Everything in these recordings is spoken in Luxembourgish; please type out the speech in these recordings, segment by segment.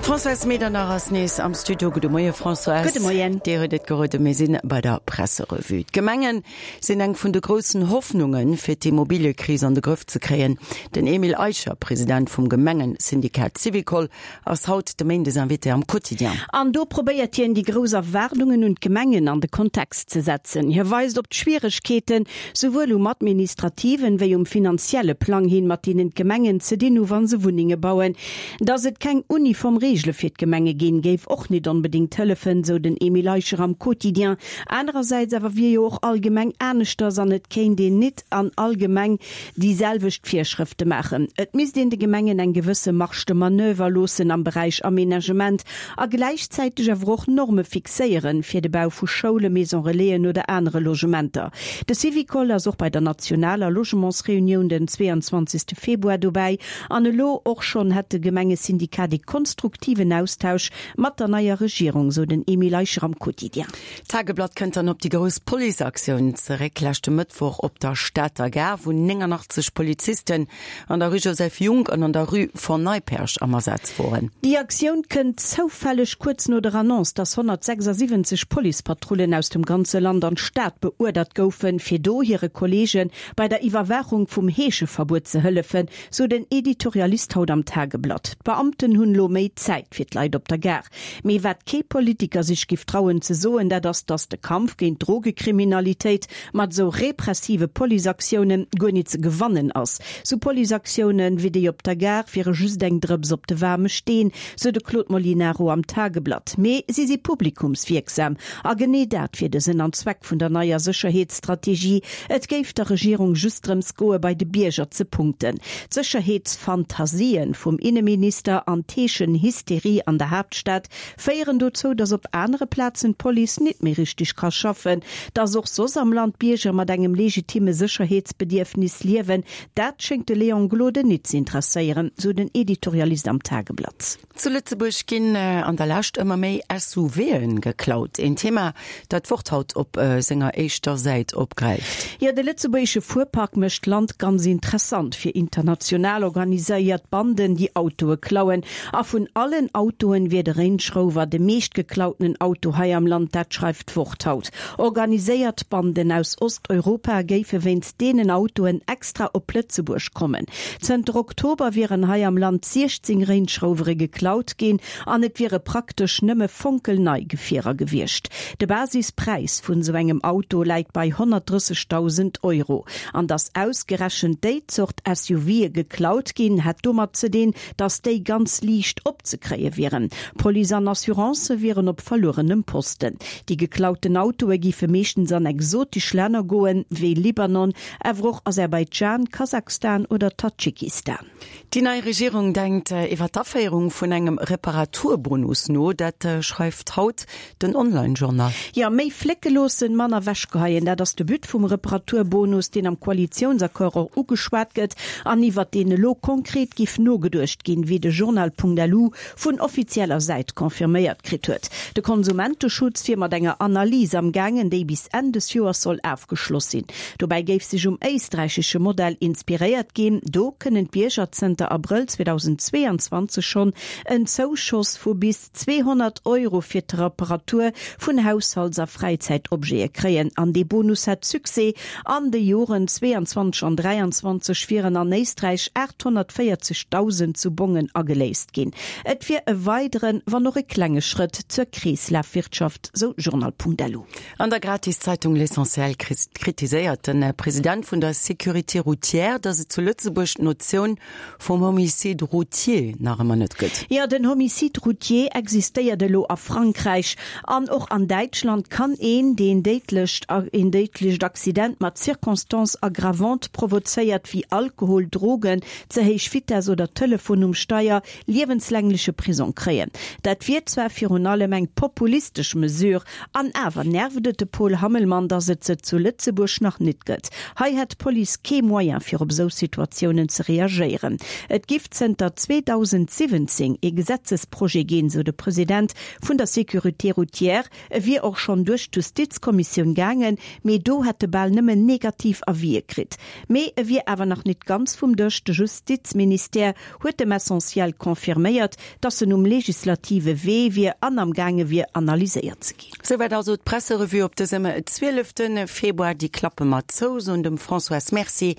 D'Françoise Medernach ass nees am Studio. Gudde Moie Françoise. Gudde Moien. Dir huet et geroden, mir sinn bei der Presserevue. D'Gemengen sinn eng vun de groussen Hoffnungen, fir d'Immobiliëkris an de Grëff ze kréien. Den Emile Eicher, President vum Gemengesyndikat Syvicol, ass haut de Méindesinvité am Quotidien. An do probéiert hien, déi grouss Erwaardungen un d'Gemengen an de Kontext ze setzen. Hie weist op d'Schwieregkeeten, souwuel um administrativen wéi um finanzielle Plang hin, mat deenen d'Gemengen ze dinn hu wa se Wunnenge bauen. Datt et keng uniform Reegele fir d'Gemenge ginn, géif och nit onbedéngt hëllefen, sou den Emile Eicher am Quotidien. Anerersäits awer wier jo och all Gemeng aneschters an et kéint een nit an all Gemeng déi selwecht Virschrëfte maachen. Et misst een de Gemengen eng gewësse Marge de manoeuvre loossen am Beräich Aménagement a gläichzäiteg awer och Norme fixéieren fir de Bau vu Schoulen, Maison Relaisen oder anere Logementer. De Syvicol ass och bei der nationaler Logementsreunioun den 22 Februar dobäi an elo och schonn hätt de Gemengesyndikat ee konstruktiven Austausch mat der neier Regierung, sou den Emile Eicher am Quotidien. D'Tageblatt kënnt dann op déi grouss Policeaktioun zeréck leschte Mëttwoch op der Stater Gare, wou 89 Polizisten an der Rue Joseph Junck an an der Rue Von Neipperg am Asaz woren. Déi Aktioun kënnt zoufälleg kuerz no der Annonce, dass 176 Policepatrullen aus dem ganze Land an d'Stad beuerdert goufen, fir do hire Kolleege bei der Iwwerwaachung vum Heescheverbuet ze hëllefen, sou den Editorialist haut am Tageblatt. D'Beamten hunn elo méi Zäit fir d'Leit op der Gare. Mee wat kee Politiker sech giff trauen ze soen, dat ass, datt de Kampf géint d'Drogekriminalitéit mat esou repressive Policeaktiounen guer nit ze gewannen ass. Sou Policeaktiounen wéi déi op der Gare wiere just eng Drëps op de waarme Steen, sou de Claude Molinaro am Tageblatt. Mee si si publikumswierksam. A genee dat wier de Sënn an Zweck vun der neier Sécherheetsstrategie. Et géif der Regierung just drëms goe bei de Bierger ze punkten. D'Sécherheetsfantasien vum Inneminister an d'Heeschenhysterie an der Haaptstad féieren dozou, datt op anere Plazen d'Police nit méi richteg ka schaffen. Datt och soss am Land d'Bierger mat engem legitime Sécherheetsbedierfnis liewen, dat schéngt de Léon Gloden nit ze interesséieren, sou den Editorialist am Tageblatt. Zu Lëtzebuerg ginn an der Lescht ëmmer méi SUVen geklaut. Een Thema, dat d'Wort haut op senger éischter Säit opgräift. Jo, de lëtzebuergesche Fuerpark mécht d'Land ganz interessant fir international organiséiert Banden, déi Autoe klauen. A vun allen Autoen wier de Range Rover de meeschtgeklautenen Auto hei am Land, dat schreift d'Wort haut. Organiséiert Banden aus Osteuropa géife wéinst deenen Autoen extra op Lëtzebuerg kommen. Zënter Oktober wieren hei am Land 16 Range Rovere geklaut ginn an et wiere praktesch nëmme fonkelnei Gefierer gewiescht. De Basispräis vun esou engem Auto läit bei 130.000 Euro. An datt ausgerechent déi Zort SUVe geklaut ginn, hätt domat ze dinn, datt déi ganz liicht opzekréie wieren. Police an Assurancë wieren op verluerenem Posten. Déi geklauten Autoe géife meeschtens an exotesch Länner goen, wéi Libanon, awer och Aserbaidschan, Kasachstan oder Tadschikistan. Déi nei Regierung denkt iwwer d'Aféierung vun engem Reparaturbonus no. Dat schreift haut den Online-Journal. Jo, méi flécke loossen, manner ewechgeheien, dat ass de But vum Reparaturbonus, deen am Koalitiounsaccord och ugeschwat gëtt an iwwer deen elo konkret giff nogeduecht ginn, wéi de Journal.lu vun offizieller Säit confirméiert kritt huet. De Konsumenteschutz wier mat enger Analys am gaangen, déi bis Enn des Joers soll afgeschloss sinn. Dobäi géif sech um éisträichesche Modell inspiréiert ginn. Do kënnen d'Bierger zënter Abrëll 2022 schonn en Zouschoss vu bis 200 Euro fir d'Reparatur vun Haushalts a Fräizäitobjete kréien. An dee Bonus hätt Succès, An de Joren 22 an 23 wieren an Éisträich 840.000 zu Bongen ageléist ginn. Et wier e weideren, wann och e klenge Schrëtt zur Kreeslafwirtschaft, sou Journal.lu. An der Gratiszeitung L'Essentiel kritiséiert de President vun der Sécurité routière, datt et zu Lëtzebuerg d'Notioun vum Homicide routier nach ëmmer net gëtt. Jo, den Homicide routier existéiert elo a Frankräich. An och an Däitschland kann een, deen déidlecht een déidlecht Accident mat Circonstances aggravantes provozéiert, wéi Alkohol, Drogen, ze héich Vitess oder Telefon um Steier, liewenslängleche Prisong kréien. Dat wier zwar virun allem eng populistesch Mesure, An awer nervt et de Paul Hammelmann, datt et se zu Lëtzebuerg nach nit gëtt. Hei hätt d'Police kee Moyen fir op esou Situatiounen ze reagéieren. Et giff zënter 2017 ee Gesetzesprojet ginn, sou de President vun der Sécurité routière. E wier och schonn duerch d'Justizkommissioun gaangen, mee do hätt e bal nëmmen negativ Avisë kritt. Mee e wier awer nach nit ganz vum Dësch. De Justizministère huet dem Essentiel confirméiert. dass en um legislative Wee wier an am gaange wier analyséiert ze ginn. Souwäit also d'Presserevue op dësem 12 Februar. Déi klappe mer zou, soen dem Françoise Merci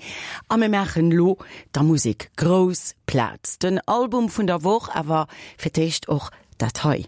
a mir maachen elo der Musek grouss Plaz. Den Album vun der Woch, awer fir d'éischt och dat hei.